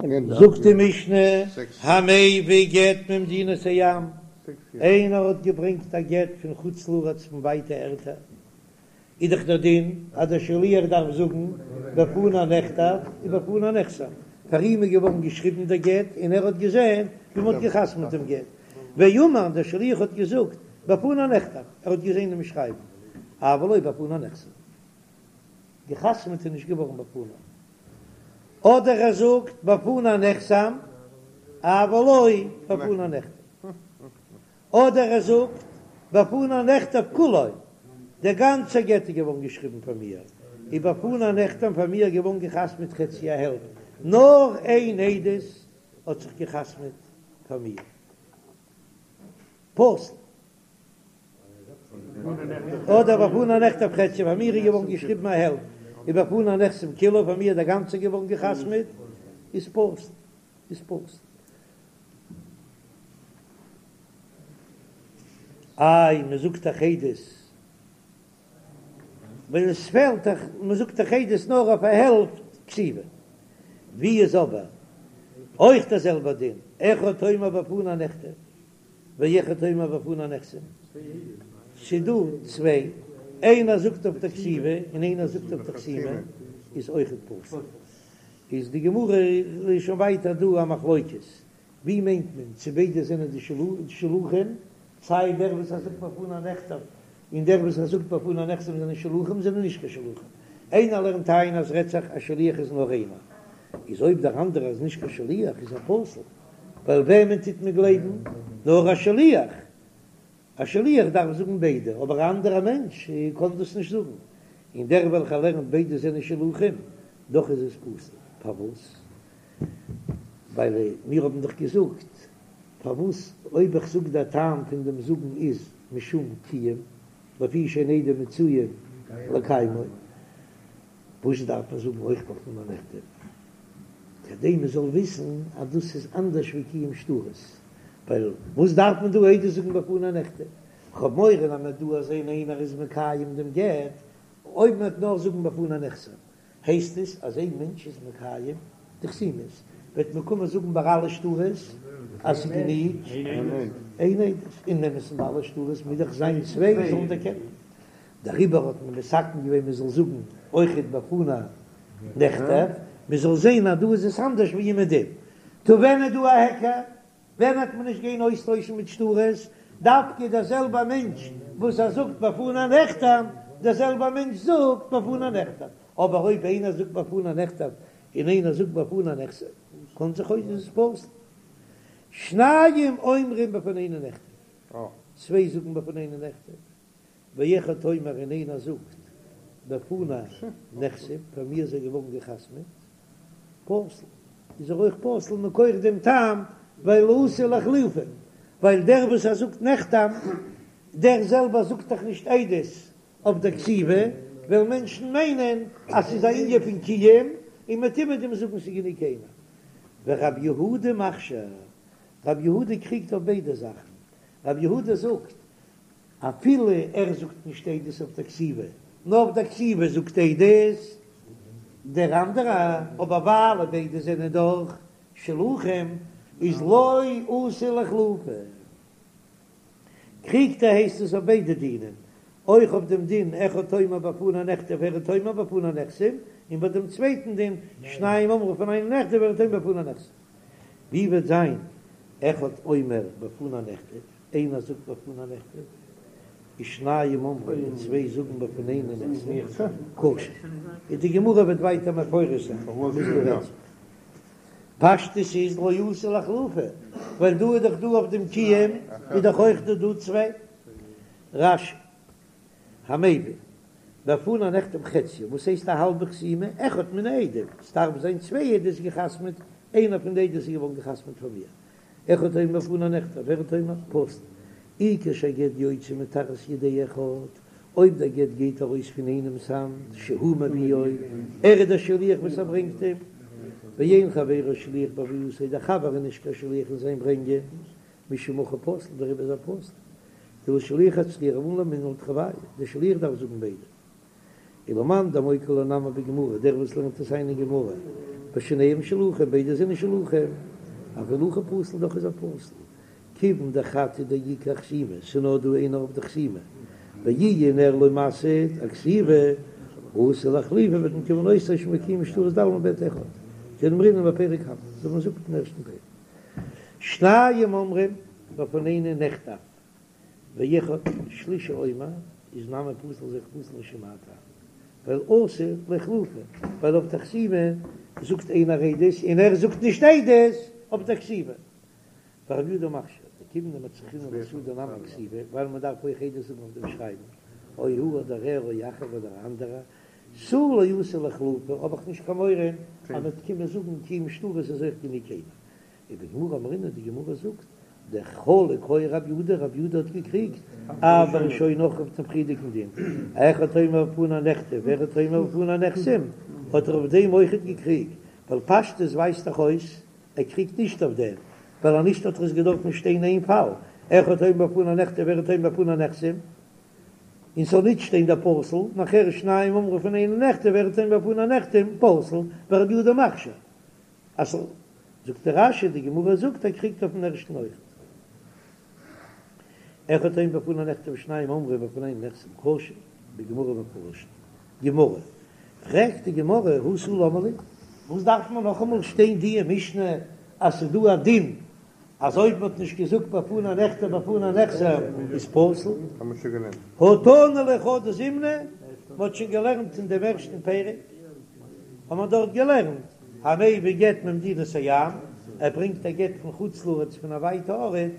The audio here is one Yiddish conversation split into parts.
זאגט די משנה, המביא גט ממדינת הים, איינער האט געברענגט א גט פון חוץ לארץ פון ווייטע ערטער, איז דאך דער דין אז דער שליח דארף זאגן בפני נכתב ובפני נחתם, פאר אים איז געווארן געשריבן דער גט און ער האט געזען ווי מען האט געחתמעט דעם גט, ואמר דער שליח האט געזאגט בפני נכתב, ער האט געזען דעם שרייבן, אבל לא בפני נחתם, געחתמעט איז נישט געווארן בפני. אדער ער זאגט בפני נחתם אבל לא בפני נכתב, אדער ער זאגט בפני נכתב כולו, דער גאנצער גט איז געווארן געשריבן פאר מיר, ובפני נחתם פאר מיר געווארן געחתמעט חציו א העלפט, נאר איין עדות האט זיך געחתמעט פאר מיר. פסול. אדער בפני נכתב חציו פאר מיר איז געווארן געשריבן א העלפט, ובפני נחתם כולו פאר מיר איז דער גאנצער געווארן געחתמעט, איז פסול, איז פסול. איי מען זאגט דאך עדות ווען עס פעלט דאך, מען זאגט דאך עדות נאר אויף א העלפט כתיבה, ווי איז אבער אויך דער זעלבער דין, אחד אומר בפני נכתב ואחד אומר בפני נחתם, ס'דא צוויי, איינער זאגט אויף די כתיבה און איינער זאגט אויף די חתימה, איז אויכעט פסול. איז די גמרא איז שוין ווייטער דא א מחלוקת, ווי מיינט מען צו ביידע זענען די שלוחים, סיי דער וואס ער זאגט בפני נכתב און דער וואס ער זאגט בפני נחתם זענען שלוחים זענען נישט קיין שלוחים, איינער לערנט איין אז רעדט זיך א שליח איז נאר איינער, איז אויב דער אנדערער איז נישט קיין שליח איז ער פסול. ווייל וועמען טוט מען גלייבן? נאר א שליח. א שליח דארף זאגן ביידע, אבער א אנדערע מענטש קען דאס נישט זאגן. און דער וועלכער לערנט ביידע זענען שלוחים, דאך איז עס פסול. פארוואס? ווייל מיר האבן דאך געזאגט, פארוואס אויב איך זאג דער טעם פון דעם זאגן איז משום קיום, לפי שאין עדים מצויין לקיימו, וואס דארף מען זאגן אויך בפני נכתב? כדי מען זאל וויסן אז דאס איז אנדערש ווי קיום שטרות, ווייל וואס דארף מען דא עדות זאגן בפני נכתב? כ'האב מורא אז מען וועט דא זען איינער איז מקיים דעם גט, אויב מען וועט נאר זאגן בפני נחתם הייסט עס אז איין מענטש איז מקיים די חתימות, וועט מען קומען זאגן ביי אלע שטרות אז ס'איז גענוג איין עדות, אין אמת'ן ביי אלע שטרות מוז דאך זיין צוויי זאלן דערקענען. דעריבער האט מען מתקן געווען מען זאל זאגן אויכעט בפני נכתב, מען זאל זען אז דא איז עס אנדערש ווי אומעדום. טא ווען איז דא א היכר? ווען וועט מען נישט גיין אויסטוישן מיט שטרות? דווקא דער זעלבער מענטש וואס ער זאגט בפני נחתם, דער זעלבער מענטש זאגט בפני נכתב. אבער אויב איינער זאגט בפני נכתב און איינער זאגט בפני נחתם, קען זיך אויס איז עס פסול. שניים אומרים בפנינו נכתב, צוויי זאגן בפנינו נכתב. ואחד אומר און איינער זאגט בפני נחתם, פאר מיר איז ער געווארן געחתמעט, פסול, איז ער אויך פסול מכח דעם טעם ווייל אתי לאחלופי, ווייל דער וואס ער זאגט נחתם, דער זעלבער זאגט דאך נישט עדות אויף דער כתיבה, וועלן מענטשן מיינען אז ס'איז א ענין פון קיום, און מ'וועט אומעדום זאגן ס'איז גענוג איינער. ורב יהודה מכשיר, רב יהודה קריגט אויף ביידע זאכן, רב יהודה זאגט אפילו ער זאגט נישט עדות אויף דער כתיבה, נאר אויף דער כתיבה זאגט עדות דער אנדערע, אבער ווייל ביידע זענען דאך שלוחים איז לא אתי לאחלופי. קריגט ער הייסט עס אויף ביידע דינים, אויך אויף דעם דין אחד אומר בפני נכתב ואחד אומר בפני נחתם, און ביי דעם צווייטן דין שניים אומרים בפנינו נכתב ואחד אומר בפני נחתם. ווי וועט זיין אחד אומר בפני נכתב? איינער זאגט בפני נכתב, ושניים אומרים און צוויי זאגן בפנינו נחתם, כשר. און די גמרא וועט ווייטער מפרש זיין וואס דא רעדט זיך. פשטות איז לא אתי לאחלופי, ווייל דא איז דאך דא אויף דעם קיום איז דאך אויך דא דא צוויי. רש"י, המביא, בפני נחתם חציו, וואס הייסט א האלבע חתימה? אחד מן העדים, ס'דארף זיין צוויי עדות געחתמעט, איינער פון די עדות איז געווארן געחתמעט פאר מיר. אחד אומר בפני נכתב ואחד אומר פסול, אי כשהגט יוצא מתחת ידי אחד, אויב דער גט גייט ארויס פון איינעמס האנט, שהוא מביאו, ער איז דער שליח וואס ער ברענגט אים, ואין חברו שליח בהבאתו, דער חבר איז נישט קיין שליח אין זיין ברענגען, משום הכי פסול, דעריבער איז ער פסול. דלשליח אצטריכא רבנן למימר תרוייהו, דער שליח דארף זאגן ביידע. ולמאן דמוקי לה נמי בגמרא, דער וואס לערנט עס איין אין גמרא. ושניהם שלוחים, ביידע זענען שלוחים, אפילו הכי פסול דאך איז ער פסול, כיוון דחד הוא דאיכא אחתימה, ס'איז נאר דא איינער אויף די חתימה, ואיהו נאר לא מסהיד אכתיבה, אתי לאיחלופי וועט מען קומען אויסטוישן וקיום שטרות דעלמא בעד אחד, כדאמרינן בפרק קמא, אזוי ווי מ'זאגט אין ערשטן פרק. שניים אומרים בפנינו נכתב, ואחד שלישי אומר איז נמי פסול איז אויך פסול משום מאי טעמא, ווייל אתי לאיחלופי, ווייל אויף די חתימה זאגט איינער עדות און ער זאגט נישט עדות אויף די כתיבה. ורבי יהודה מכשיר, דכיון דמצרכינן לאסהודי נמי כתיבה, ווייל מען דארף אויך עדות זאגן אויף דעם שרייבן, או הוא אדער ער או אחר אדער א אנדערער, תו לא אתי לאיחלופי, האב איך נישט קיין מורא אז מען וועט קומען זאגן קיום שטרות איז אויך גענוג איינער. ובגמרא אמרינן די גמרא זאגט דחלק היה רב יהודה רב יהודה האט געקריגט אף בראשונה אויך אויף דעם פריערדיגן דין אחד אומר בפני נכתב ואחד אומר בפני נחתם האט ער אויף דעם אויכעט געקריגט ווייל פשטות ווייזט דאך אויס ער קריגט נישט אויף דעם ווייל אז נישט האט ער עס געדארפן שטיין איין פאל אחד אומר בפני נכתב ואחד אומר בפני נחתם און ס'זאל נישט שטיין דער פסול נאכער שניים אומרים בפנינו נכתב ואחד אומר בפני נחתם פסול ורבי יהודה מכשיר אז זאגט דער רש"י, די גמרא זאגט ער קריגט אויפן ערשטן אויכעט. אחד אומר בפני נכתב ושניים אומרים בפנינו נחתם כשר, בגמרא מפרש, גמרא, פרעגט די גמרא הא תו למה לי, וואס דארף מען נאכאמאל שטיין דיע משנה אז ס'איז דא א דין אז אויב מ'האט נישט געזאגט בפני נכתב בפני נחתם איז פסול? הא תנא ליה חדא זימנא, מ'האט שוין געלערנט אין דעם ערשטן פרק, האט מען דארט געלערנט המביא גט ממדינת הים, ער ברענגט א גט פון חוץ לארץ פון א ווייטע ארט,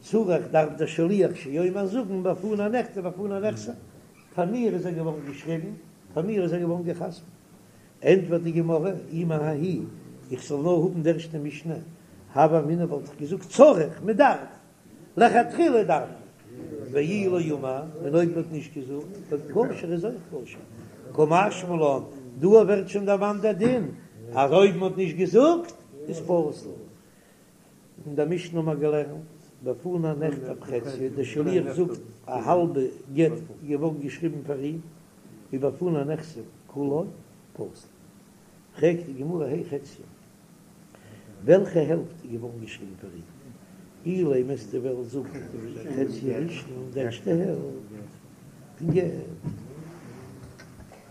צריך דארף דער שליח שיאמר זאגן בפני נכתב בפני נחתם, פאר מיר איז ער געווארן געשריבן, פאר מיר איז ער געווארן גע'חתמ'ט. ענטפערט די גמרא, אי מההיא, איך זאל נאר האבן די ערשטע משנה, הוה אמינא וואלט איך געזאגט צריך, מען דארף, לכתחילה דארף מען, ואי לא אמר, און אויב מען האט נישט געזאגט, כשר איז אויך כשר, קא משמע לן, דא ווערט שוין דערמאנט דער דין, אז אויב מען האט נישט געזאגט, איז פסול. אין דער משנה האבן מיר געלערנט, בפני נכתב חציו, דער שליח זאגט א האלבע גט געווארן געשריבן פאר אים, ובפני נחתם כולו פסול. פרעגט די גמרא הי חציו, וועלכע העלפט איז געווארן געשריבן פאר אים? אילימא וועסטו וועלן זאגן חציה הראשון, די ערשטע העלפט פון גט,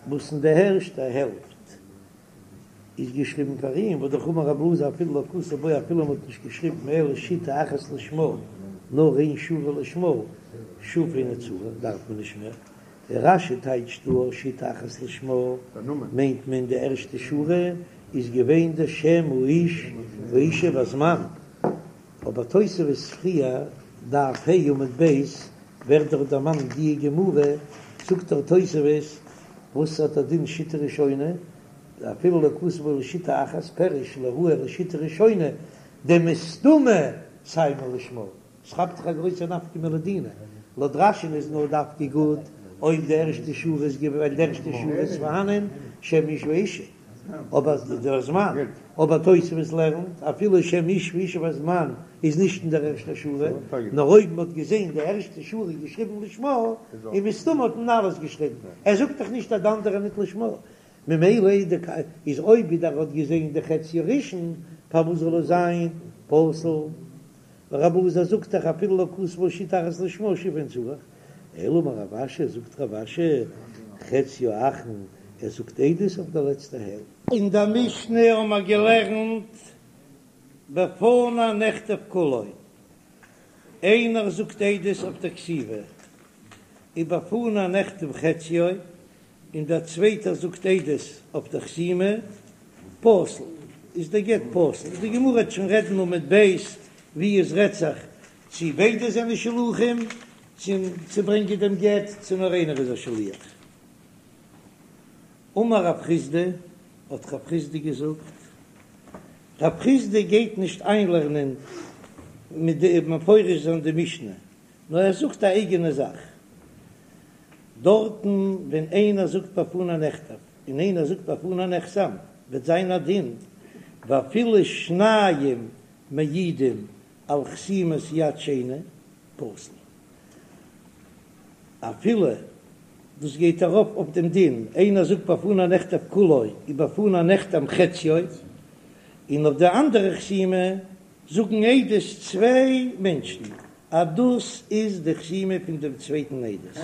וואס אין די ערשטע העלפט איז געשריבן פאר אים, והא דאך אמר רב אלעזר אפילו לא כתב בו אפילו מען האט נישט געשריבן אלא שיטה אחת לשמה, נאר איין שורה לשמה, שוב אינו צריך דארף מען נישט מער. דער רש"י טייטשט דא שיטה אחת לשמה מיינט מען די ערשטע שורה איז געווען די שם האיש והאישה והזמן, אבער תוספות פריער דף ה' עמוד ב' ווערט דאך דערמאנט די גמרא, זאגט דער תוספות וואס האט א דין שיטה ראשונה, אפילו לא כתב בו אלא שיטה אחת פירוש לא ראי אלא שיטה ראשונה דמסתמא סיימה לשמה. ס'כאפט זיך א גרויסע נפקא מינה לדינא, לויט רש"י'ן איז נאר דווקא גוט אויב די ערשטע שורה איז געווען ווייל די ערשטע שורה איז פארהאנען שם איש ואישה, אבער דער זמן, אבער תוספות לערנט אפילו שם איש ואישה והזמן איז נישט אין דער ערשטער שורה, נאר אויב מ'האט געזען די ערשטע שורה געשריבן לשמה, און מסתמא האט מען אלעס געשריבן, ער זאגט דאך נישט אז די אנדערע ניט לשמה, ממילא איז אויב ווידער האט געזען די חצי הראשון פארוואס זאל עס זיין פסול? רב אלעזר זאגט דאך אפילו לא כתב בו שיטה אחת לשמה שוב אינו צריך, אלא אמר רב אשי זאגט רב אשי חציה האחרון ער זאגט עדות אויף די לעצטע העלפט. אין דער משנה האבן מיר געלערנט בפני נכתב כולו, איינער זאגט עדות אויף דער כתיבה, ובפני נחתם חציו, און דער צווייטער זאגט עדות אויף דער חתימה, פסול, איז דער גט פסול. די גמרא וועט שוין רעדן עמוד ב' ווי עס רעדט זיך צי ביידע זענען שלוחים צו צו ברענגען דעם גט, צו נאר איינער איז א שליח. אמר רב חסדא, האט רב חסדא געזאגט, רב חסדא גייט נישט איינלערנען מיט די מפרש זיין די משנה, נאר ער זאגט א אייגענע זאך. דארטן ווען איינער זאגט בפני נכתב און איינער זאגט בפני נחתם וועט זיין א דין ואפילו שניים מעידים על חתימת יד שני פסול. אפילו דאס גייט ארויף אויף דעם דין איינער זאגט בפני נכתב כולו ובפני נחתם חציו. און אויף די אנדערע חתימה זאגן עדות צוויי מענטשן אז דאס איז די חתימה פון דעם צווייטן עדות.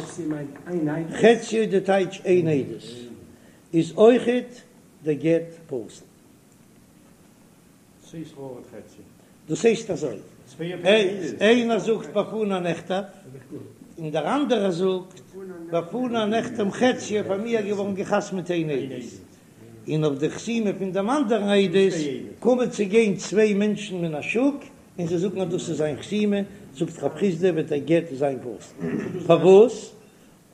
חציו די טייטש איין עדות איז אויכעט דער גט פסול. דאס הייסט אזוי, איינער זאגט בפני נכתב, און דער אנדערער זאגט בפני נחתם חציו פאר מיר געווארן געחתמעט איין עדות, און אויף די חתימה פון דעם אנדערן עדות קומען צו גיין צוויי מענטשן מן השוק און זיי זאגן אז דאס איז זיין חתימה, זאגט רב חסדא וועט דער גט זיין פסול. פארוואס?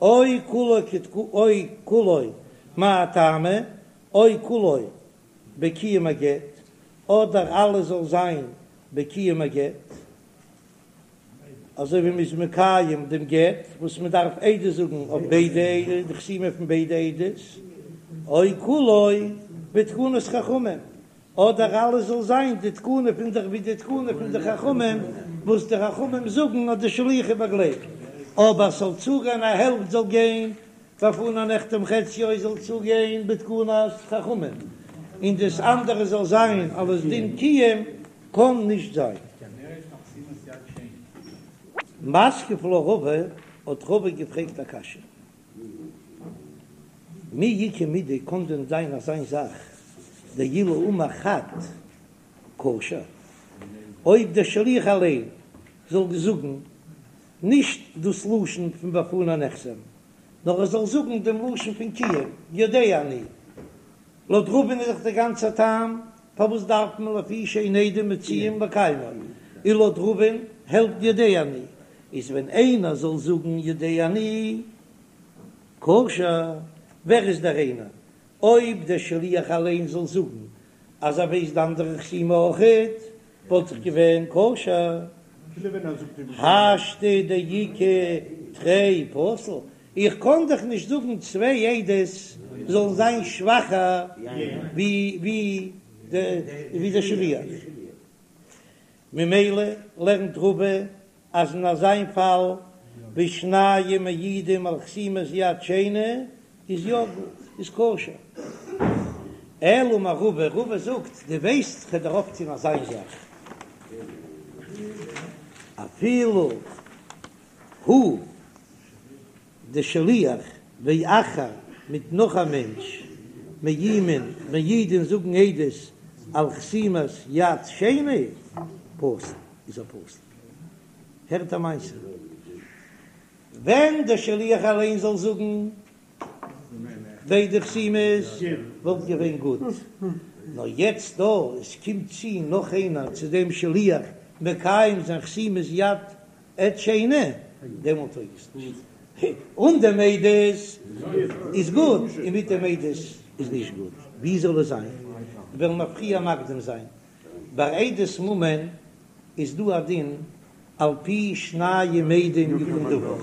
או כולו או כולו מאי טעמא, או כולו בקיום הגט, אדער אלעס זאל זיין בקיום הגט, אזוי ווי מ'איז מקיים דעם גט וואס מ'דארף עדות זאגן אויף ביידע, די חתימה פון ביידע עדות, או כולו בתקנת חכמים, אדער אלעס זאל זיין די תקנה פון די ווי די תקנה פון די חכמים וואס די חכמים זאגן אז די שליח איז באגלייבט, אבער ס'זאל צוגיין א העלפט זאל גיין בפני נחתם חציו זאל צוגיין בתקנת חכמים, און דאס אנדערע זאל זיין אלס דין קיום, קען נישט זיין. מתקיף לה רבא, האט רבא געפרעגט א קשיא, מי איכא מידי קען דען זיין אזיין זאך דאילו אמר חד כשר, אויב דער שליח אליין זאל זאגן נישט דאס לשון פון בפני נחתם, נאר ער זאל זאגן דעם לשון פון קיום, יודע אני. לויט רבא'ן איז דאך דער גאנצער טעם פארוואס דארף מען לפי שאין עדים מצויים לקיימו, און לויט רבא'ן העלפט יודע אני, איז ווען איינער זאל זאגן יודע אני כשר, ווער איז דער איינער? אויב דער שליח אליין זאל זאגן אז ער ווייסט די אנדערע חתימה אויכעט, וואלט דאך געווען כשר. השתא דאיכא תרי פסול, איך קען דאך נישט זאגן צוויי עדות זאלן זיין שוואכער ווי דער שליח, ממילא לערנט רבא אז אין אזיין פאל ווי שניים מעידים על חתימת יד שני איז יא גוט, איז כשר. אלא אמר רבא, רבא זאגט, דו ווייסט כ'וועל דיר אויפטון אזיין זאך, אפילו הוא די שליח ואחר מיט נאך א מענטש מעידין מעידין זאגן עדות על חתימת יד שני פסול איז ער פסול. הערט א מעשה, ווען דער שליח אליין זאל זאגן ביידע חתימות וואלט געווען גוט, נאר יעצט דא עס קומט צו נאך איינער צו דעם שליח מקיים זיין חתימת יד עד שני, דעמאלט טויג עס נישט. אן דעם עדות איז גוט, און מיט דעם עדות איז נישט גוט. ווי זאל עס זיין? וועלן מיר פריער מקדים זיין. ביי עדות ממון איז דא א דין על פי שניים עדים יקום דבר,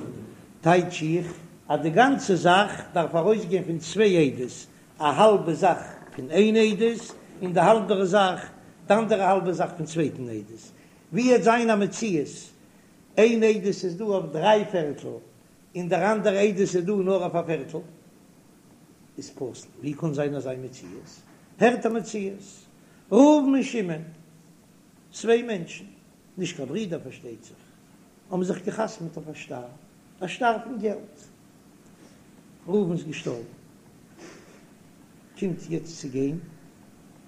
טייטש איך אז די גאנצע זאך דארף ארויסגיין פון צוויי עדות, א האלבע זאך פון איין עדות און די האלבערע זאך, די אנדערע האלבע זאך פון צווייטן עדות. ווי עט זיין א מציאות איין עדות איז דא אויף דריי פערטל און דער אנדערע עדות איז דא נאר אויף א פערטל, איז פסול. ווי קען זיין אזא מציאות? הערט א מציאות, ראובן און שמעון, צוויי מענטשן, נישט קיין ברידער פארשטייט זיך, האבן זיך געחתמעט אויף א שטר, א שטר פון געלט. ראובן איז געשטארבן, קומט יעצט צו גיין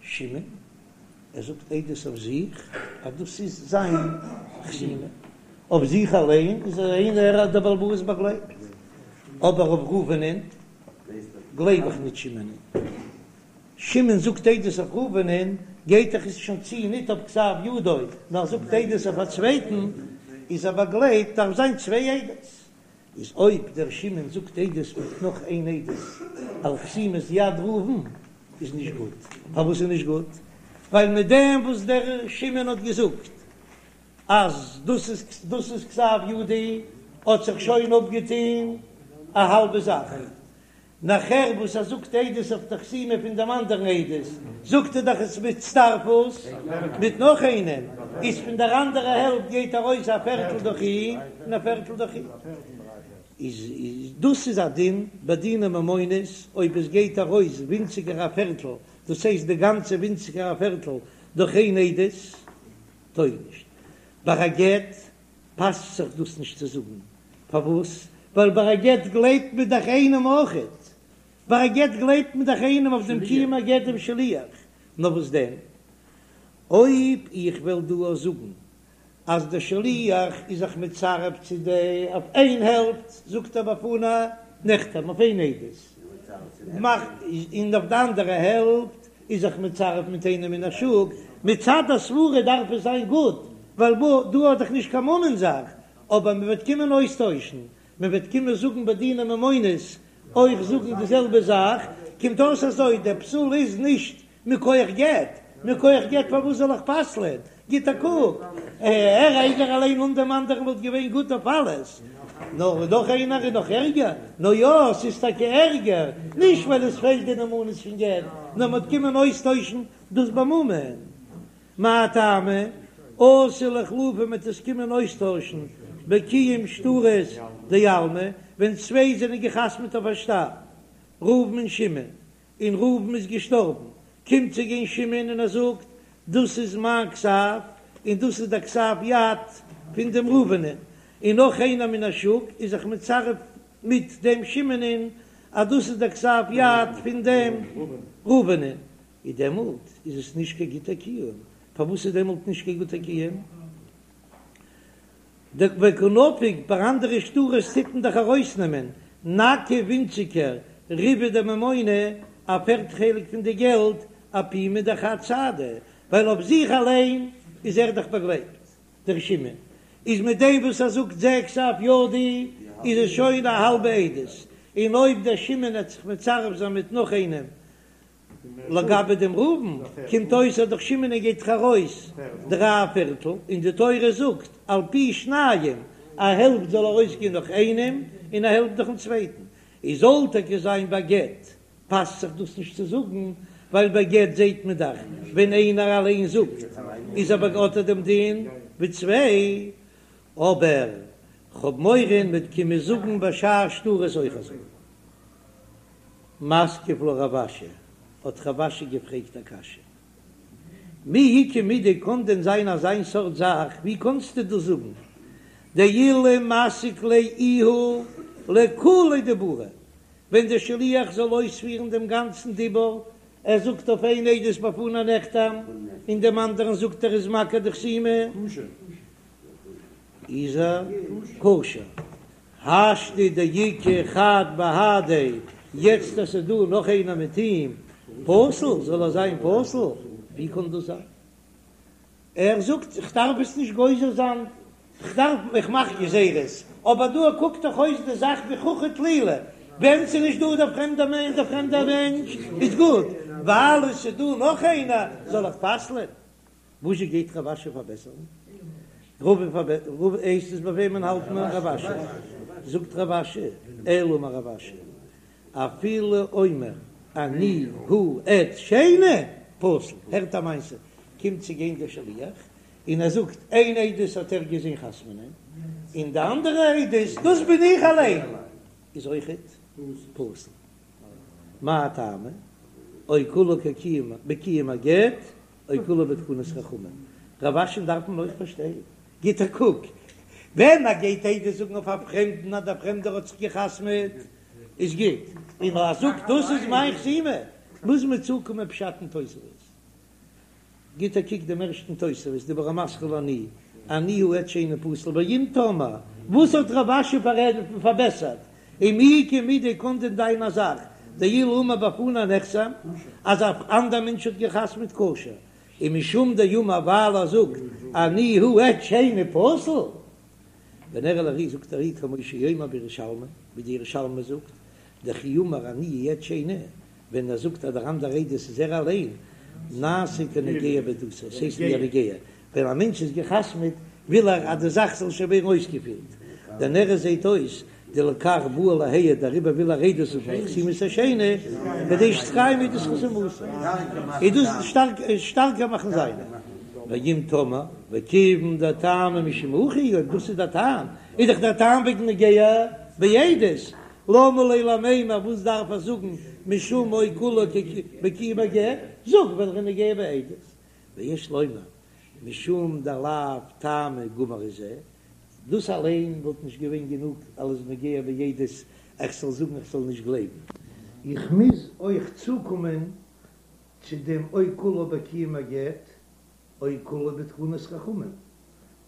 שמעון, ער זאגט עדות אויף זיך אז דאס איז זיין חתימה, אויף זיך אליין איז ער איינער דער בעל הבית באגלייבט, אבער אויף ראובנ'ען גלייב איך נישט שמעונ'ען. שמעון זאגט עדות אויף ראובנ'ען, גייט דאך עס שוין צו ניט אויף כתב ידו, נאר זאגט עדות אויף א צווייטן, איז ער באגלייבט, דארף זיין צוויי עדות. איז אויב דער שמעון זאגט עדות מיט נאך איין עדות על חתימת יד ראובן איז נישט גוט. פארוואס איז נישט גוט? ווייל מיט דעם וואס דער שמעון האט געזאגט אז דאס איז דאס איז כתב ידי האט זיך שוין אפגעטון א האלבע זאך, נאכער וואס ער זאגט עדות אויף די חתימה פון דעם אנדערן עדות, זאגט ער דאך עס בהצטרפות מיט נאך איינעם, איז פון דער אנדערע העלפט גייט ארויס א פערטל דורך אים און א פערטל דורך אים. איז דאס איז א דין ביי דיני ממונות, אויב עס גייט ארויס ווינציגער א פערטל, דאס הייסט די גאנצע ווינציגער א פערטל. דורך איין עדות טויג נישט. ביי א גט פאסט זיך דאס נישט צו זאגן, פארוואס? ווייל ביי א גט גלייבט מען דאך איינעם אויכעט, ביי א גט גלייבט מען דאך איינעם אויף דעם קיום הגט דעם שליח, נאר וואס דען אויב איך וועל דא אויך זאגן אז דער שליח איז זיך מצרף צו די אויף איין העלפט, זאגט ער בפני נחתם אויף איין עדות, מאכט און אויף די אנדערע העלפט איז זיך מצרף מיט איינעם מן השוק, מצד הסברה דארף עס זיין גוט, ווייל דא האט דאך נישט קיין ממון זאך, אבער מען וועט קומען אויסטוישן, מען וועט קומען זאגן ביי דיני ממונות אויך זאגן די זעלבע זאך, קומט אויס אזוי, דער פסול איז נישט מכח גט, מכח גט פארוואס זאל איך פסל'ען? גיט א קוק, ער איינער אליין אן דעם אנדערן וואלט געווען גוט אויף אלעס, נאר נאך איינער איז נאך ערגער, נו יא, ס'איז טאקע ערגער, נישט ווייל עס פעלט די נאמנות פון גט, נאר מ'וועט קומען אויסטוישן דאס בממון. מאי טעמא? אתי לאיחלופי מ'וועט עס קומען אויסטוישן בקיום שטרות דעלמא, ווען צוויי זענען געחתמעט אויף א שטר, ראובן און שמעון, און ראובן איז געשטארבן, קומט צו גיין שמעון און ער זאגט, דאס איז מיין כתב, און דאס איז דער כתב יד פון דעם ראובנ'ען, און נאך איינער מן השוק איז זיך מצרף מיט דעם שמעונ'ען אז דאס איז דער כתב יד פון דעם ראובנ'ען, איז דעמאלט איז עס נישט קיין גוטער קיום, פארוואס איז דעמאלט נישט קיין גוטער קיום? וקא נפיק ביי אנדערע שטרות טוט מען דאך ארויסנעמען נכי ווינציגער ריבעא דממונא א פערט חלק פון די געלט אפומא דחד סהדא ווייל אויף זיך אליין איז ער דאך באגלייבט דער שמעון איז מיט דעם וואס ער זאגט זה כתב ידי איז עס שוין א האלבע עדות און אויב דער שמעון העט זיך מצרף זיין מיט נאך איינעם לגבי דעם ראובן קומט אויס אז דורך שמעון גייט דאך ארויס דריי פערטל, און די תורה זאגט על פי שניים, א העלפט זאל ארויסגיין דורך איינעם און א העלפט דורכן צווייטן, איז זאל טאקע זיין ביי גט פאסט זיך דאס נישט צו זאגן, ווייל ביי גט זעט מען דאך ווען איינער אליין זאגט איז אבער האט ער דעם דין ווי צוויי, אבער כ'האב מורא מ'וועט קומען זאגן ביי שאר שטרות אויך אזוי. מתקיף לה רב אשי, האט רב אשי געפרעגט א קשיא, מי איכא מידי קאן דען זיין אזיין סארט זאך, ווי קאנסטו דאס זאגן, דאילו מסיק ליה איהו לכוליה דיבורא, ווען דער שליח זאל אויספירן דעם גאנצן דיבור, ער זאגט אויף איין עדות בפני נחתם, און דעם אנדערן זאגט ער איז מכיר די חתימה, איז ער כשר. השתא דאיכא חד בהדיה, יעצט אז ס'איז דא נאך איינער מיט אים, פסול, זאל ער זיין פסול? ווי קען דאס זיין? ער זאגט איך דארף עס נישט גוזר זיין, איך דארף, איך מאך גזירות, אבער דא קוקט דאך אויס די זאך ווי חוכא טלולא, ווען ס'איז נישט דא דער פרעמדער מענטש, דער פרעמדער מענטש איז גוט, ווייל עס איז דא נאך איינער זאל איך פסל'ען? וואזשע גייט רב אשי פארבעסערן? רבא פארבע הייסט עס ביי וועמען האלט מען רב אשי? זאגט רב אשי, אלא אמר רב אשי, אפילו אומר אני הוא עד שני פסול, הערט א מעשה, קומט צו גיין דער שליח און ער זאגט איין עדות האט ער געזען חתמ'נען, און די אנדערע עדות דאס בין איך אליין, איז אויכעט פסול. מאי טעמא? או כולה כקיום בקיום הגט או כולה בתקנת חכמים. רב אשי'ן דארף מען אויך פארשטיין. גיט א קוק, ווען ער גייט עדות זאגן אויף א פרעמדן אז דער פרעמדער האט זיך גע'חתמ'עט איז גוט, און ער זאגט דאס איז מיין חתימה, מוז מען צוקומען פשט אין תוספות. גיט א קוק דעם ערשטן תוספות, דיבור המתחיל אני, אני הוא עד שני פסול, ואם תאמר, וואס האט רב אשי פארבעסערט, ומי איכא מידי קאן דען זיין א זאך, דאילו אמר בפני נחתם, אז א אנדער מענטש האט געחתמעט כשר, און משום דאמר ווייל ער זאגט אני הוא עד שני פסול, ונראה לארי זאגט ארי כמו שאומר בירושלמי, ווי די ירושלמי זאגט, דכי אמר אני עד שני, ווען ער זאגט אז דער אנדער עדות איז ער אליין, נעשה כנוגע בעדותו, עס הייסט ווי א נוגע, ווען א מענטש איז גע'חתמ'עט וויל ער אז די זאך זאל שוין ווערן אויסגעפירט, דנראה זעהט אויס דלכך בא להעיד דעריבער וויל ער עדות זאגן על חתימת השני כדי שתתקיים עדות חתימתו, איז דאס שטארקער מאכן זיינע. ואם תאמר, וכיוון דטעמא משום הכי, אויב דאס איז דער טעם, איז דאך דער טעם וועגן נוגע בעדות, למה ליה למימר וואס דארף ער זאגן משום או כולה בקיום הגט, זאג ווייל ער איז נוגע בעדות. ויש לומר משום דלאו טעמא גמור הוא זה, דאס אליין וואלט נישט געווען גענוג אלס נוגע בעדות איך זאל זאגן איך זאל נישט גלייבן. איך מוז אויך צוקומען צו דעם או כולה בקיום הגט או כולה בתקנת חכמים,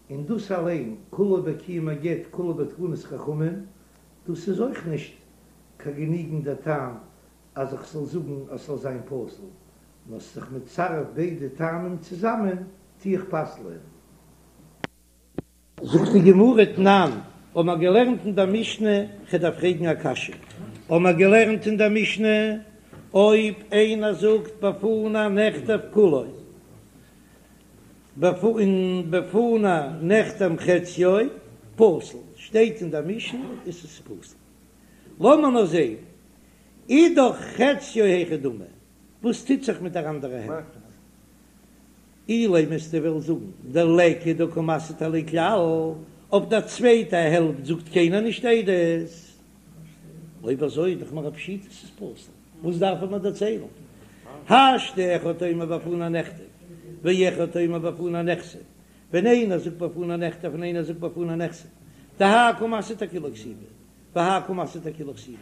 און דאס אליין כולה בקיום הגט כולה בתקנת חכמים, דאס איז אויך נישט קיין גענוגנדע טעם אז איך זאל זאגן אז ס'זאל זיין פסול, נאר ס'איז זיך מצרף ביידע טעמים צוזאמען טו איך פסל'ען. זאגט די גמרא תנן, האבן מיר געלערנט אין דער משנה, כ'דארף פרעגן א קשיא, האבן מיר געלערנט אין דער משנה, אויב איינער זאגט בפני נכתב כולו, און בפני נחתם חציו, פסול, שטייט אין דער משנה איז עס פסול. לאמיר נאר זען, אידך חציו היכי דמי, וואס טוט זיך מיט דער אנדערע העלפט? אילימא וועסטו וועלן זאגן דליכא דקא מסהיד עליה כלל, אויף דער צווייטע העלפט זאגט קיינער נישט עדות, אויב אזוי איז דאך מיר א פשיטא ס'איז פסול, וואס דארף ער מיר דערציילן? השתא אחד אומר בפני נכתב ואחד אומר בפני נחתם, ווען איינער זאגט בפני נכתב און איינער זאגט בפני נחתם, דהאי קא מסהיד אכולה כתיבה והאי קא מסהיד אכולה כתיבה,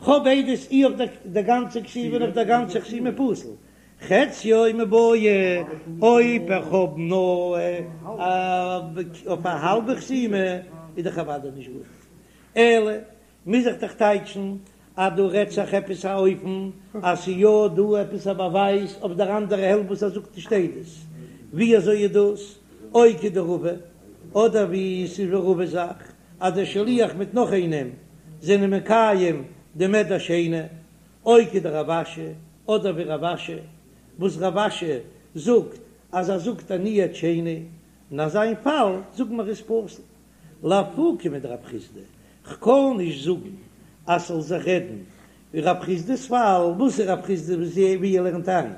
כ'האב עדות אי אויף דער גאנצע כתיבה און אויף דער גאנצע חתימה פסול, חציו מיבעיא, אויב איך האב נאר אויף א האלבע חתימה איז דאך אוודאי נישט גוט, אלא מוז איך דאך טייטשן אז דא רעדט זיך עפעס א אופן אז ס'איז יא דא עפעס א באווייז אויף דער אנדערע העלפט וואס ער זאגט נישט עדות, ווי אזוי איז דאס או כדרבא, אדער ווי ס'איז ווי רבא'ס זאך אז דער שליח מיט נאך איינעם זענען מקיים דעם עד השני, או כדרב אשי, אדער ווי רב אשי, וואס רב אשי זאגט אז ער זאגט אני עד שני, אין אזיין פאל זאגן מיר איז פסול. לאפוקי מדרב חסדא, כ'קען נישט זאגן אז ס'זאל זיך רעדן ווי רב חסדא'ס פאל, וואס איז רב חסדא ווי ער לערנט איין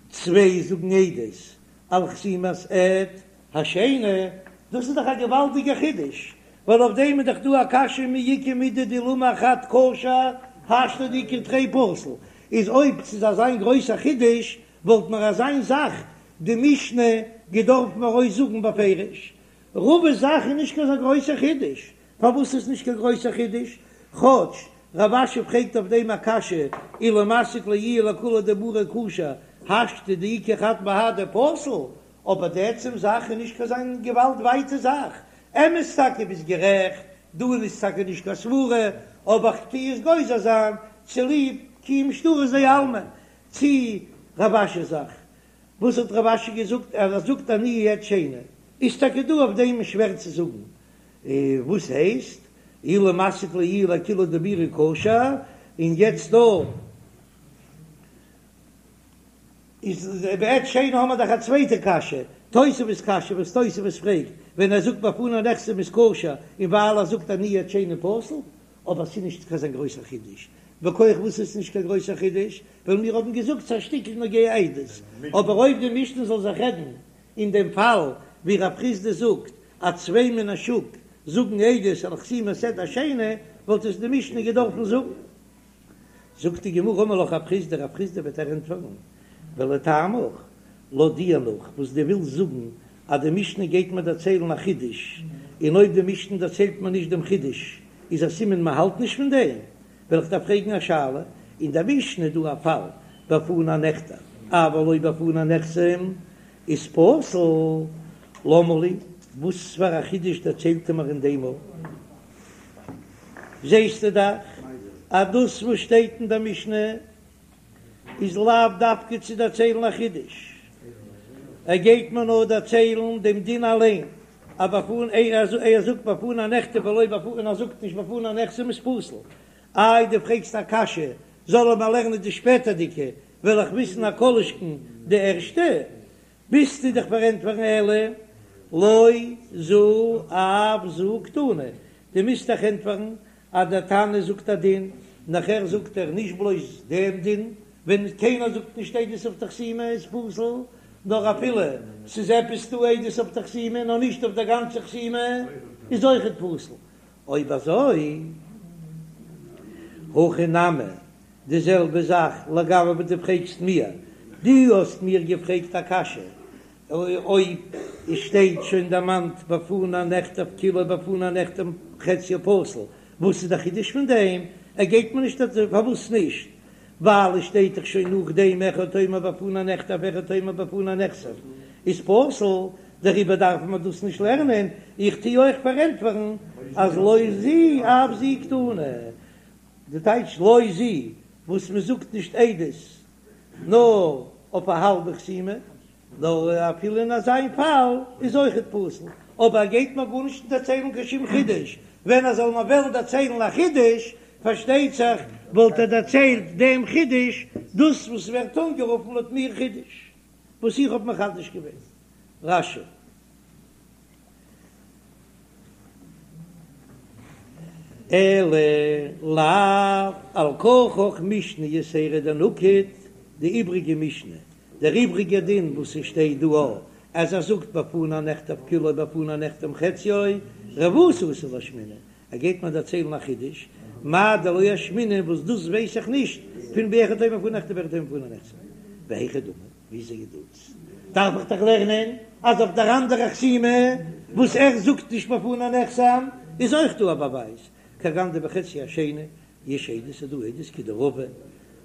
צוויי זאגן עדות על חתימת עד השני, דאס איז דאך א געוואלדיגער חידוש, ווייל אויף דעם איז דאך דא א קשיא מי איכא מידי דאילו אמר חד כשר השתא דאיכא תרי פסול, איז אויב ס'איז אזיין גרויסע חידוש וואלט מיר אזיין זאך די משנה געדארפט מיר ארויס זאגן בפירוש. רבא'ס זאך איז נישט קיין אזא גרויסע חידוש, פארוואס איז נישט קיין גרויסע חידוש? כאטש רב אשי פרעגט אויף דעם א קשיא, אילו מסיק ליה איהו לכולה דיבורא כשר השתא דאיכא חד בהדיה פסול, אבער די עצם זאך איז נישט קיין אזא געוואלד ווייטע זאך, אמת טאקע ביסט גערעכט, דא איז טאקע נישט קיין סברה, אבער כ'טוה עס גוזר זיין צוליב קיום שטרות דעלמא, צו רב אשי'ס זאך, וואס האט רב אשי געזאגט אז ער זאגט אני עד שני, איז טאקע דא אויף דעם שווער צו זאגן, וואס הייסט אילו מסיק ליה איהו לכולה דיבורא כשר, און יעצט דא איז בעד שני האמער דאך א צווייטע קשיא, תוספות קשיא וואס תוספות פרעגט ווען ער זאגט בפני נחתם איז כשר און ווייל ער זאגט אני עד שני פסול, אבער ס'איז נישט קיין אזא גרויסער חידוש, מכח וואס איז נישט קיין גרויסער חידוש? ווייל מיר האבן געזאגט ס'איז א שטיקל נוגע עדות, אבער אויב די משנה זאל זיך רעדן אין דעם פאל ווי רב חסדא זאגט אז צוויי מן השוק זאגן עדות על חתימת עד השני, וואלט עס די משנה געדארפן זאגן. זאגט די גמרא אמר לך רב חסדא, רב חסדא וועט דיר ענטפערן, ולטעמיך, לויט דיר נאך וואס דו ווילסט זאגן אז די משנה גייט מיר דערציילן א חידוש, און אויב די משנה דערציילט מיר נישט דעם חידוש איז א סימן מען האלט נישט פון דעם, וועל איך דיר פרעגן א שאלה, אין דער משנה איז דא א פאל בפני נכתב אבל לא בפני נחתם איז פסול, למה לי, וואס פאר א חידוש דערציילט ער מיר אין דעם ארט? זעסטו דאך אז דאס וואס שטייט אין דער משנה איז לאו דווקא צו דערציילן א חידוש, ער גייט מיר נאר דערציילן דעם דין אליין, אז בפני ער זאגט בפני נכתב ולא בפני און ער זאגט נישט בפני נחתם איז פסול. איי דו פרעגסט א קשיא, זאל ער מיר לערנען די שפעטערדיגע, וועל איך וויסן א כל שכן די ערשטע, מוזטו דאך פארענטפערן אלא לא זו אף זו קתני, דו מוזט דאך ענטפערן אז דער תנא זאגט א דין, נאכער זאגט ער נישט בלויז דעם דין, ווען קיינער זאגט נישט עדות אויף די חתימה איז פסול, נאר אפילו ס'איז עפעס דא עדות אויף די חתימה נאר נישט אויף דער גאנצע חתימה איז אויכעט פסול. אויב אזוי, הכא נמי, די זעלבע זאך לגבי וואס דו פרעגסט מיר, דו האסט מיר געפרעגט א קשיא. אויב עס שטייט שוין דערמאנט בפני נכתב כולו בפני נחתם חציו פסול, וואס איז די חידוש פון דעם? ער גייט מיר נישט פארוואס נישט? ווייל עס שטייט דאך שוין נאכדעם אחד אומר בפני נכתב ואחד אומר בפני נחתם איז פסול, דעריבער דארף מען דאס נישט לערנען, איך טו אויך פארענטפערן אז לא זו אף זו קתני, די טייטש לא זו וואס מען זאגט נישט עדות נאר אויף א האלבע חתימה, נאר אפילו אין אזיין פאל איז אויכעט פסול, אבער ער גייט מיר גארנישט דערציילן קיין שום חידוש, ווען ער זאל מיר וועלן דערציילן א חידוש, פארשטייט זיך וואלט ער דערציילט דעם חידוש, דאס וואס ווערט אנגערופן לויט מיר חידוש, וואס איך האב מחדש געווען. רש"י. אלא לאו על כרחך משנה יתירא דנקט, די איבריגע משנה, דער איבריגער דין וואס עס שטייט דא א אז ער זאגט בפני נכתב כולו בפני נחתם חציו, רבותא אתא לאשמועינן, ער גייט מיר דערציילן א חידוש, מאי דלא אשמעינן וואס דאס ווייס איך נישט פון באחד אומר בפני נכתב ואחד אומר בפני נחתם, והיכי דמי, וויאזוי איז דאס? דארף איך דאך לערנען אז אויף דער אנדערע חתימה וואס ער זאגט נישט בפני נחתם איז אויך דא א באווייז, כגון דבחצי השני יש עדות איז דא עדות כדרבא,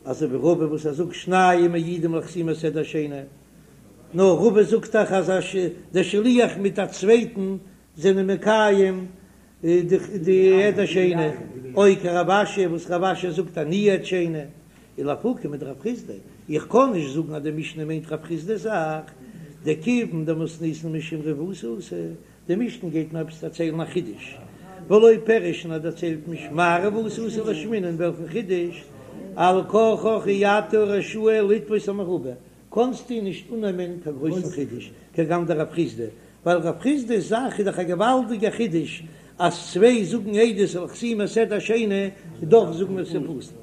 אזוי ווי רבא וואס ער זאגט שניים מעידים לחתימת עד השני, נאר רבא זאגט דאך אז דער שליח מיט א צווייטן זענען מקיים די עד השני, או כרב אשי וואס רב אשי זאגט אני עד שני, ולאפוקי מדרב חסדא, איך קען נישט זאגן אז די משנה מיינט רב חסדא'ס זאך, דכיון דמתניתין משום רבותא אתא, די משנה גייט מיר עפעס דערציילן א חידוש, ולא פירש און ער דערציילט נישט מאי רבותא אתא לאשמועינן וועלכן חידוש, על כרחך אי אתה רשאי לתפוס המרובה, קאנסטו נישט אננעמען קיין גרויסן חידוש כגון דרב חסדא, ווייל רב חסדא'ס זאך איז דאך א געוואלדיגע חידוש אז צוויי זאגן עדות על חתימת עד השני און דאך זאגן מיר ס'איז פסול.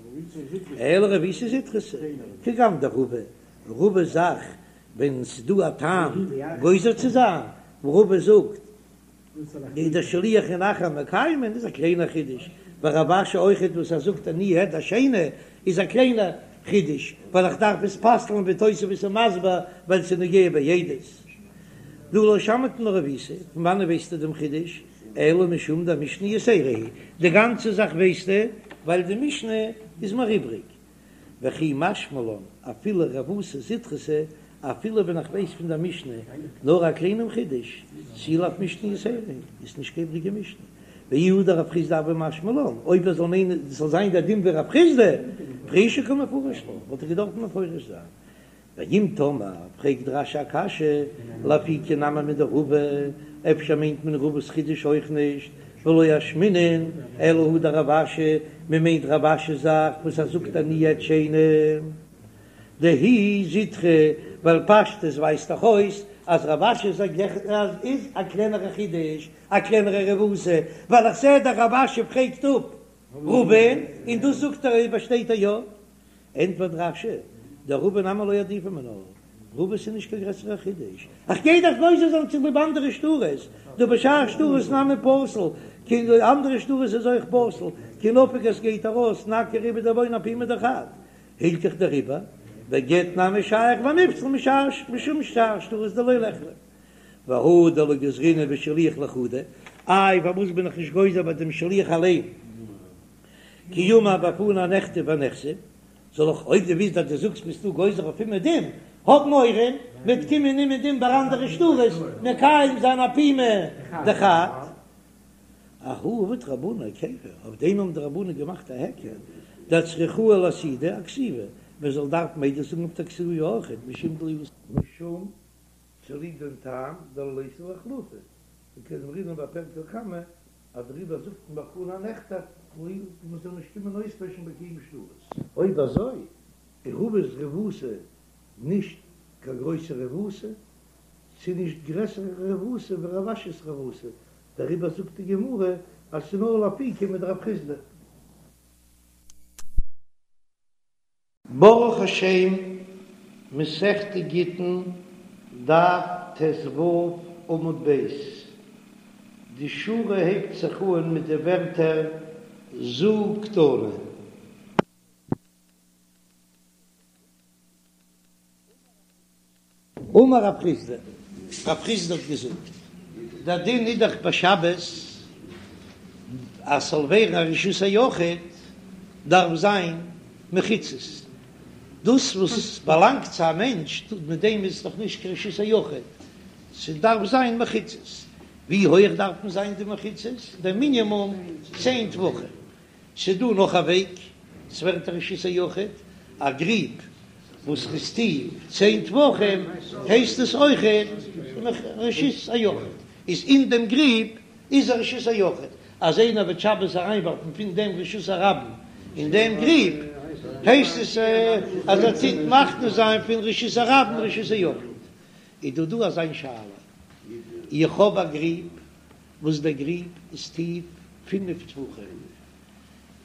אלא רבותא זוטרתא כגון דרבא, רבא'ס זאך ווען ס'איז דא א טעם גוזר צו זיין, וואו רבא זאגט איז דער שליח און אחר מקיימין איז א קליינער חידוש, ורב אשי אויכעט וואס ער זאגט אני עד השני איז א קליינער חידוש, ווייל איך דארף עס פסל'ן ווי תוספות איז מסביר ווייל ס'איז נוגע בעדות. דהא לא שמעת מינה רבותא, פון וואנען ווייסטו דעם חידוש? אלא משום דמשנה יתירה היא, די גאנצע זאך ווייסטו ווייל די משנה איז מיר איבריג. וכי משמע לן אפילו רבותא זוטרתא, אפילו ווען איך ווייס פון דער משנה נאר א קליינעם חידוש, תו לאו משנה יתירה איז נישט קיין איבריגע משנה. ואי הא דרב חסדא הוה משמע לן, אויב ער זאל מיינען ס'זאל זיין דער דין ווי רב חסדא, פרושי קא מפרש לה, וואלט ער געדארפט מפרש זיין. ואם תאמר, פרעגט רש"י א קשיא, לאפוקי נמי מדרבא, אפשר מיינט מען רבא'ס חידוש אויך נישט, ולא אשמעינן אלא הא דרב אשי, מען מיינט רב אשי'ס זאך וואס ער זאגט אני עד שני דהיא זוטרא, ווייל פשטות ווייזט דאך אויס אז רב אשי'ס זאך איז א קלענערע חידוש, א קלענערע רבותא, ווייל איך זע דאך רב אשי פרעגט אפ רבא'ן און דאס זאגט ער באשטייט ער יא. ענטפערט רש"י, דרבא נמי לא עדיפא מינה, רבא'ס איז נישט קיין גרעסערע חידוש, איך גיי דאך גוזר זיין צוליב אנדערע שטרות, דהא בשאר שטרות נמי פסול, כאילו אנדערע שטרות איז אויך פסול, כי נפיק עס גייט ארויס נכי ריבעא דממונא אפומא דחד, הילכך דעריבער, בגט נמי שייך ונפסל משום שאר שטרות דלא ליחלף. והא דלא גזרינן בשליח לחודיה, איי פארוואס בין איך נישט גוזר ביי דעם שליח אליין? כי אמר בפני נכתב ונחתם, זאל איך אויב דו ווילסט אז דו זאגסט ביסטו גוזר אויף אומעדום, האב מורא מ'וועט קומען אומעדום ביי אנדערע שטרות מקיים זיין אפומא דחד. אהא עבוד רבנן היכרא, אויף דעם האבן די רבנן געמאכט א היכר, דאצטריכוה לאסהודי אכתיבה, מען זאל דארפן עדות זאגן אויף די כתיבה אויכעט, משום דלא משום צוליב דעם טעם דלא ליתי לאיחלופי, וכדאמרינן בפרק לקמא אז דעריבער זאגט מען בפני נכתב כאילו מען זאל נישט קומען אויסטוישן בקיום שטרות. אויב אזוי איז רבא'ס רבותא נישט קיין גרויסע רבותא, ס'איז נישט גרעסערע רבותא ווי רב אשי'ס רבותא, דעריבער זאגט די גמרא אז ס'איז נאר לאפוקי מדרב חסדא. ברוך השם, מסכת גיטין, דף ט"ו עמוד ב', די שורה הייבט זיך אן מיט די ווערטער זו קתני. אמר רב חסדא. רב חסדא האט געזאגט, דער דין איז דאך ביי שבת אז ס'זאל ווערן א רשות היחיד דארף זיין מחיצות, דאס וואס באלאנגט צו א מענטש מיט דעם איז דאך נישט קיין רשות היחיד, ס'דארף זיין מחיצות, ווי הויעך דארפן זיין די מחיצות? דער מינימום צען טפחים, ס'דא נאך א וועג, ס'ווערט א רשות היחיד, א גריב וואס איז טיף צען טפחים הייסט עס אויכעט רשות היחיד, איז אין דעם גריב איז א רשות היחיד, אז איינער וועט שבת אריינווארפן פון דעם רשות הרבים אין דעם גריב הייסט עס אז ער טוט מכניס זיין פון רשות הרבים רשות היחיד. איז דא דא אזיין שאלה, איך האב א גריב וואס דער גריב איז טיף פינף טפחים,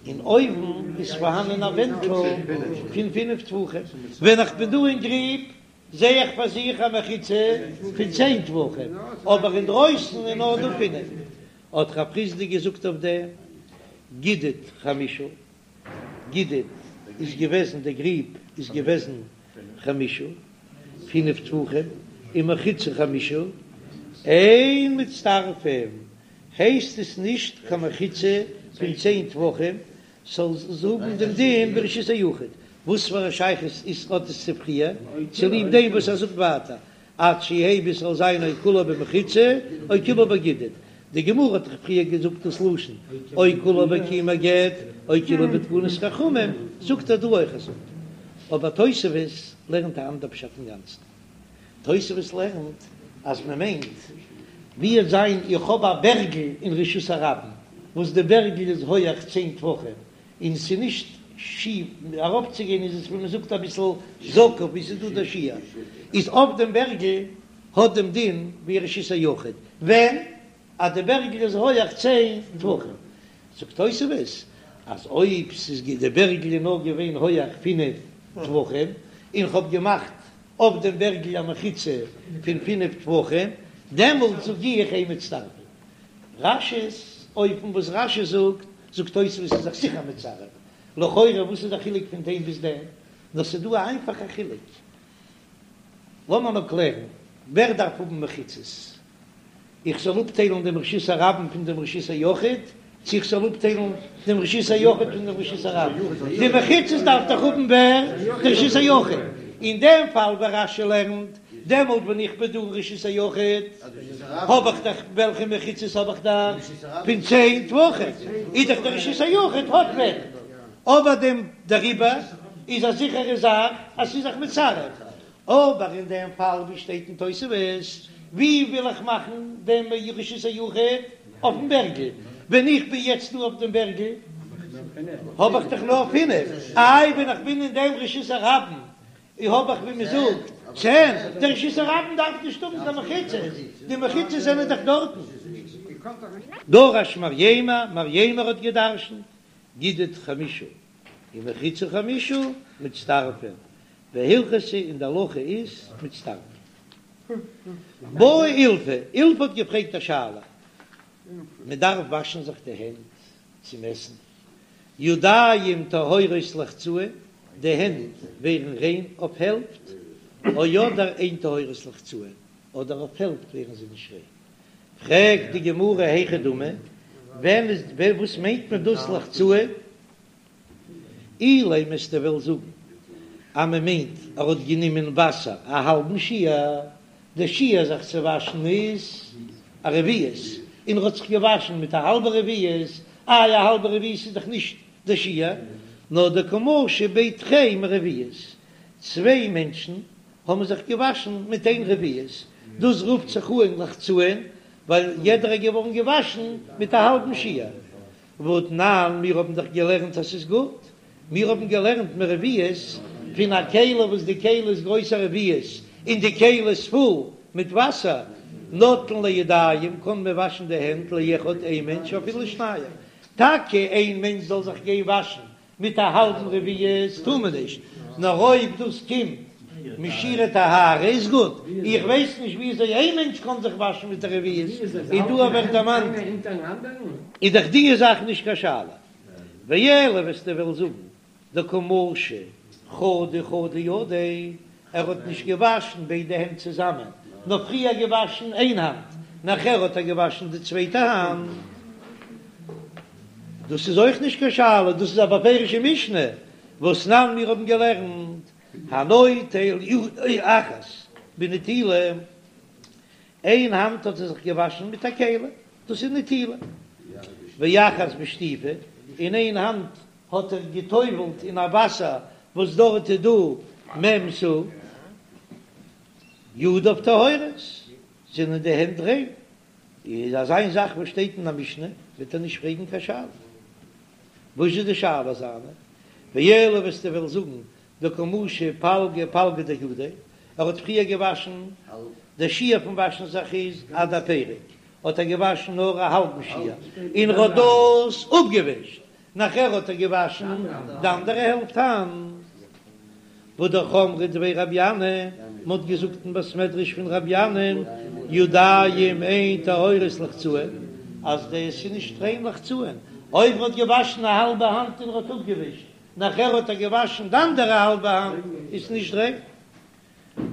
און אויבן איז פארהאנען א ווענטל פון פינף טפחים, ווען איך בין דא אין גריב זע איך פאר זיך א מחיצה פון צען טפחים, אבער אינדרויסן איז נאר דא פינף. האט רב חסדא געזאגט אויף דעם, גידוד חמשה, גידוד איז געוועזן, דער גריב איז געוועזן חמשה, פינף טפחים, און מחיצה חמשה, אין מצטרפים, הייסט עס נישט קיין מחיצה פון צען טפחים, ס'זאל האבן דעם דין ווי רשות היחיד, וואס פאר א שייכות איז האט עס צו פריער, צוליב דעם וואס ער זאגט ווייטער עד שיהא ביז ס'זאל זיין או כולו במחיצה או כולו בגידוד, די גמרא האט דאך פריער געזאגט דאס לשון או כולו בקיום הגט או כולו בתקנת חכמים, זאגט ער דא אויך אזוי. אבער תוספות לערנט א אנדער פשט אינגאנצן. תוספות לערנט אז מען מיינט ווי עס זיין איך האב א בערגל אין רשות הרבים וואס די בערגל איז הויעך צען טפחים און ס'איז נישט שיף אראפצוגיין איז עס ווי מ'זאגט אביסל זקוף ווי ס'איז דא דער שיעור איז אויף דעם בערגל האט דעם דין ווי רשות היחיד ווען אז די בערגל איז הויעך צען טפחים זאגט תוספות אז אויב ס'איז די בערגל איז נאר געווען הויעך פינף טפחים און כ'האב געמאכט אויף דעם בערגל א מחיצה פון פינף טפחים דעמאלט זאג איך אין מצטרפין. רש"י'ס אופן וואס רש"י זאגט, זאגט תוספות איז זיך זיכער מצרף, לכאורה וואס איז די חילוק פון דעם ביז דעם? נאר ס'איז דא א איינפאכע חילוק, לאמיר נאר קלערן, ווער דארף האבן מחיצות? איך זאל אפטיילן דעם רשות הרבים פון דעם רשות היחיד, צו איך זאל אפטיילן דעם רשות היחיד פון דעם רשות הרבים? די מחיצות דארף דאך האבן ווער? די רשות היחיד. אין דעם פאל ווי רש"י לערנט, דעמאלט ווען איך בין דא אין רשות היחיד, האב איך דאך, וועלכע מחיצות האב איך דאך? פון צען טפחים, איז דאך דער רשות היחיד האט ווענט, אבער דעם דעריבער איז א זיכערע זאך אז ס'איז זיך מצרף, אבער אין דעם פאל ווי שטייט אין תוספות, ווי וויל איך מאכן דעם רשות היחיד? אויפן בערגל, ווען איך בין יעצט דא אויף דעם בערגל האב איך דאך נאר פינף, איי ווען איך בין אין דעם רשות הרבים און האב איך ווי מען זאגט צען, דער רשות הרבים דארף נישט האבן קיין מחיצות, די מחיצות זענען דאך דארטן. דרש מרימר, מרימר האט געדרשנט, גידוד חמשה ומחיצה חמשה מצטרפין, והלכתא און די הלכה איז מצטרפין. בעי אילפא, אילפא האט געפרעגט א שאלה, מען דארף וואשן זיך די הענט צום עסן, ידיים טהורות לחצאין, די הענט ווערן ריין אויף העלפט, או אדער אין טהורות לחצאין, אדער אויף העלפט ווערן זיי נישט ריין. פרעגט די גמרא היכי דמי, ווען איז וואס מיינט מען דאס לחצאין? אילימא וועסטו וועלן זאגן אז מען מיינט ער האט גענומען וואסער א האלבן שיעור, די שיעור זיך צו וואשן איז א רביעית, און ער האט זיך געוואשן מיט א האלבע רביעית, איי א האלבע רביעית איז דאך נישט די שיעור, נאר דקא משו בי תרי מרביעית, צוויי מענטשן האבן זיך געוואשן מיט איין רביעית, דאס רופט זיך אן לחצאין, ווייל יעדער איז געווארן געוואשן מיט א האלבן שיעור. והתנן, מיר האבן דאך געלערנט אז ס'איז גוט, מיר האבן געלערנט מרביעית פון א כלי וואס די כלי איז גרויס א רביעית און די כלי איז פול מיט וואסער, נוטלין לידיים קען מען וואשן די הענט לאחד איין מענטש אפילו לשניים, טאקע איין מענטש זאל זיך גיין וואשן מיט א האלבן רביעית טאר מען נישט, נאר אויב דאס קומט משיעורי טהרה איז גוט, איך ווייס נישט וויאזוי איין מענטש קען זיך וואשן מיט א רביעית, און דא ווערט דערמאנט איז דאך די זאך נישט קיין שאלה, ואלא וועסטו וועלן זאגן דקא משי חדא חדא ידיה, ער האט נישט געוואשן ביידע הענט צוזאמען. נאר פריער געוואשן איין האנט, נאכער האט ער געוואשן די צווייטע האנט, דאס איז אויך נישט קיין שאלה, דאס איז א בפירושע משנה, והתנן מיר האבן געלערנט, הנוטל ידו אחת בנטילה, איין האנט האט ער זיך געוואשן מיט א כלי, דאס איז נטילה, ואחת בשטיפה, און איין האנט האט ער גע'טובל'ט אין א וואסער וואס דארט איז דא מ' סאה, ידיו טהורות, זענען די הענט ריין, איז אזא איין זאך וואס שטייט אין א משנה, וועט ער נישט פרעגן קיין שאלה. וואס איז די שאלה זיינע? ואלא וועסטו וועלן זאגן דקא משי פלגא פלגא דידיה, ער האט פריער געוואשן, דער שיעור פון וואשן זיך איז עד הפרק, האט ער געוואשן נאר א האלבן שיעור, און ער האט דאס אפגעווישט, נאכער האט ער געוואשן די אנדערע העלפט האנט. והא דאך אמרי דבי רבי ינאי, מען האט געזאגט אין בית מדרש פון רבי ינאי, ידיים אין טהורות לחצאין, אז דאס איז נישט ריין לחצאין, אויב מען האט געוואשן א האלבע האנט און ער האט אפגעווישט, נאכער האט ער געוואשן די אנדערע האלבע האנט, איז נישט ריין.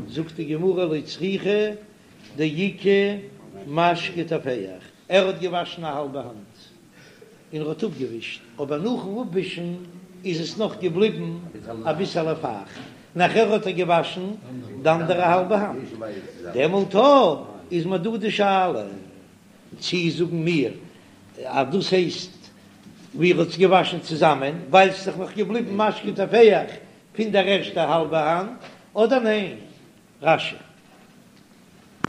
זאגט די גמרא לא צריכא דאיכא משקה טופח, ער האט געוואשן א האלבע האנט און ער האט אפגעווישט, אבער נאכן אפווישן איז עס נאך געבליבן אביסעלע פייכט, נאכער האט ער געוואשן די אנדערע האלבע האנט, דעמאלט איז מיר דא די שאלה צי זאגן מיר אז דאס הייסט ווי ער האט עס געוואשן צוזאמען ווייל ס'איז דאך נאך געבליבן משקה טופח פון דער ערשטער האלבע האנט, אדער ניין? רש"י.